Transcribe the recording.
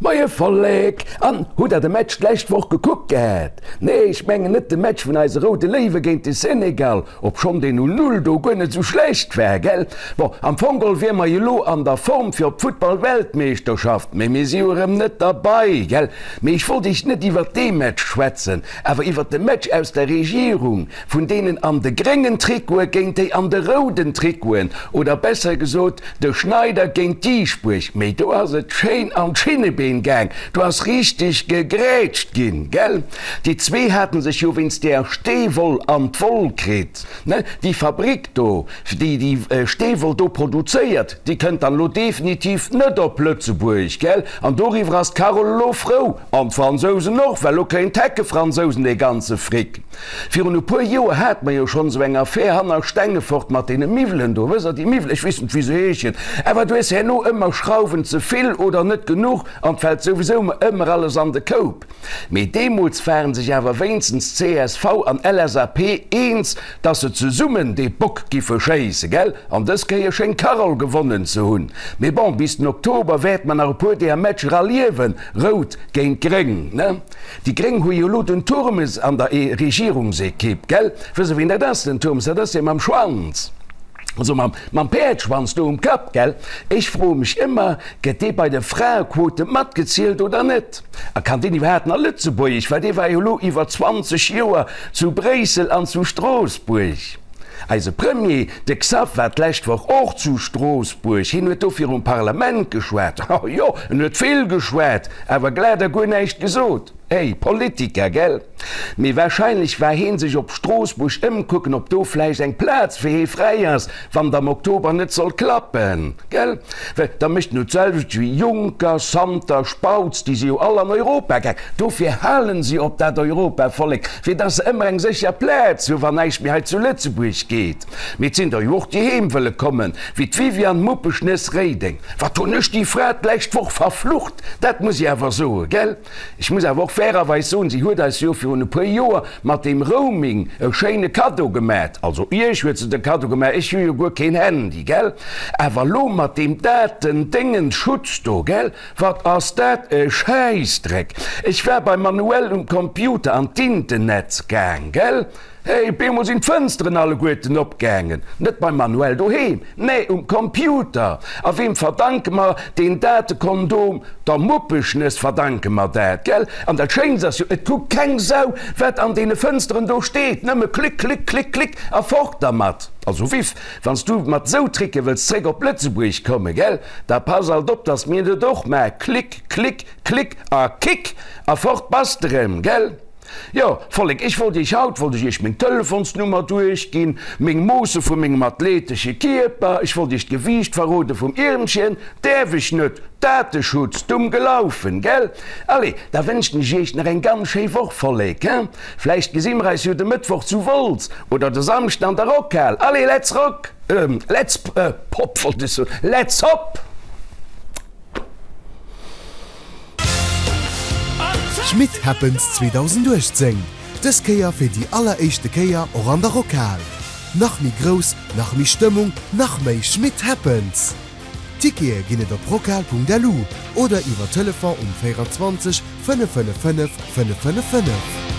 Moie Vollek! An, hutt der de Match d'lescht Woch gekuckt gehat? Nee, ech mengen net de Match vun eise Roude Léiwe géint de Senegal, obschonn deen 0, 0 do guer net sou schlecht war, gell? Bon, am Fong geholl wier mer jo lo an der Form fir op d'Futtball-Weltmeeschterschaft, mee mir si jo erëm net derbei, gell? Mee ech wollt iech net iwwert dee Match schwätzen, awer iwwert de Match aus der Regierung, vun deenen an de gréngen Trikote géint déi an de rouden Trikoten, oder besser gesot, De Schneider géint Dieschbourg, mee do ass et schéin an d'Schinnebeen gaang, do ass richteg gegrätscht ginn, gell? Déi zwee haten sech jo wéinst där Steewoll an d'Woll kritt, ne? Déi Fabrik do, déi déi Steewoll do produzéiert, déi kënnt dann elo definitiv net op Lëtzebuerg, gell? An doriwwer ass d'Carole elo frou, an d'Fransousen och, well elo kréien d'Heckefransousen dee ganze Fric. Virun e puer Joer hate mer jo schonn esou eng Affär hanner Stengefort mat deene Miwwelen do. Wësst Der, déi Miwwelen, ech weess net, wéi se heeschen, awer du hues herno ëmmer Schrauwen ze vill oder net genuch an 't fält souwisou ëmmer alles an de Koup. Mee deemools ware sech awer wéinstens csv an LSAP eens, dass se zesummen dee Bock giffe schéisse, gell? An dës Kéier schéngt d'Carole gewonnen ze hunn. Mee bon, bis den Oktober wäerte mer nach e puer deeër Matcher erliewen, Rout géint Gréng, ne? Déi Gréng hu jo elo den Turmes an der Regierungsekipp, gell? Wësst Der, wien dat ass, den Turmes? Dat ass dee mam Schwanz, also mam, mam Päerdschwanz do um Kapp, gell? Ech froe mech ëmmer, Gëtt dee bei de Fraequote matgezielt oder net? A kann deen iwwerhaapt nach Lëtzebuergesch? Well dee war jo elo iwwer 20 Joer zu Bréissel an zu Stroossbuerg. Eise Premier, de Xav, war d'lescht Woch och zu Stroossbuerg. Hien huet do virum Parlament geschwat. Oh jo, en huet vill geschwat, awer glat a guer näischt gesot. Hey, Politiker, gell? Mee wahrscheinlech war heen sech op Stroossbuerg ëmkucken, ob do vläicht eng Plaz fir hee fräi ass, wann et am Oktober net soll klappen, gell? Well da mécht en jo d'selwecht wéi Juncker, Santer, Spautz, déi si jo all an Europa gaang. Dofir halen si op dat Europavollek, fir dass se ëmmer eng sécher Plaz hu wann näischt méi hei zu Lëtzebuerg geet. Mee et sinn der jo och, déi heem wëlle kommen, wéi d'Viviane Muppeschnëss-Reding. Wat hunn ech déi Fra d'lescht Woch verflucht, dat muss ech awer soen, gell? Ech muss awer och fairerweis soen, si huet eis jo virun e puer Joer mat deem Roaming e schéine Kaddo gemat. Also iech huet se de Kaddo gemat, ech hu jo guer keen Handy, gell? Awer elo mat deem Daten-Déngens-Schutz do, gell? Wat ass dat e Schäissdreck! Ech war beim Manuel um Computer an d'Internetz gaang, gell? Hey, op eemol sinn d'Fënsteren alleguerten opgaangen. Net beim Manuel doheem, nee, um Computer. A weem verdanke mer deen Datekondom? Der Muppeschnëss verdanke mer dat, gell? An dat Schéinst ass jo, et kuckt keng Sau, wat an deene Fënsteren do steet. Nëmme klick, klick, klick, klick a fort dermat. Also Viv, wann s du mat sou Tricke wëlls zréck op Lëtzebuerg kommen, gell, da pass alt op, dass mir net och maache klick, klick, klick a kick a fort bass de rëm, gell? Jo, Vollek, ech wollt iech haut, wollt ech iech meng Telefonsnummer duerchginn, meng Moosse vu mengem athletesche Kierper, ech wollt iech d'Gewiicht verrode vum Iermchen, däerf ech net, Dateschutz, dumm gelaufen, gell? Allez, da wënschen ech iech nach eng ganz schéi Woch, Vollek, hein? Vläicht gesi mer eis jo de Mëttwoch zu Wolz oder de Samschden an der Rockhal. Allez, let's rock, let's pop, wollt ech soen, let's hop! Schmit Happens 2018, dës Kéier fir déi alleréischte Kéier och an der Rockhal. Nach méi grouss, nach méi Stëmmung, nach méi Schmit Happens! Tickete ginn et op rockhal.lu oder iwwer Telefon um 24 555 555.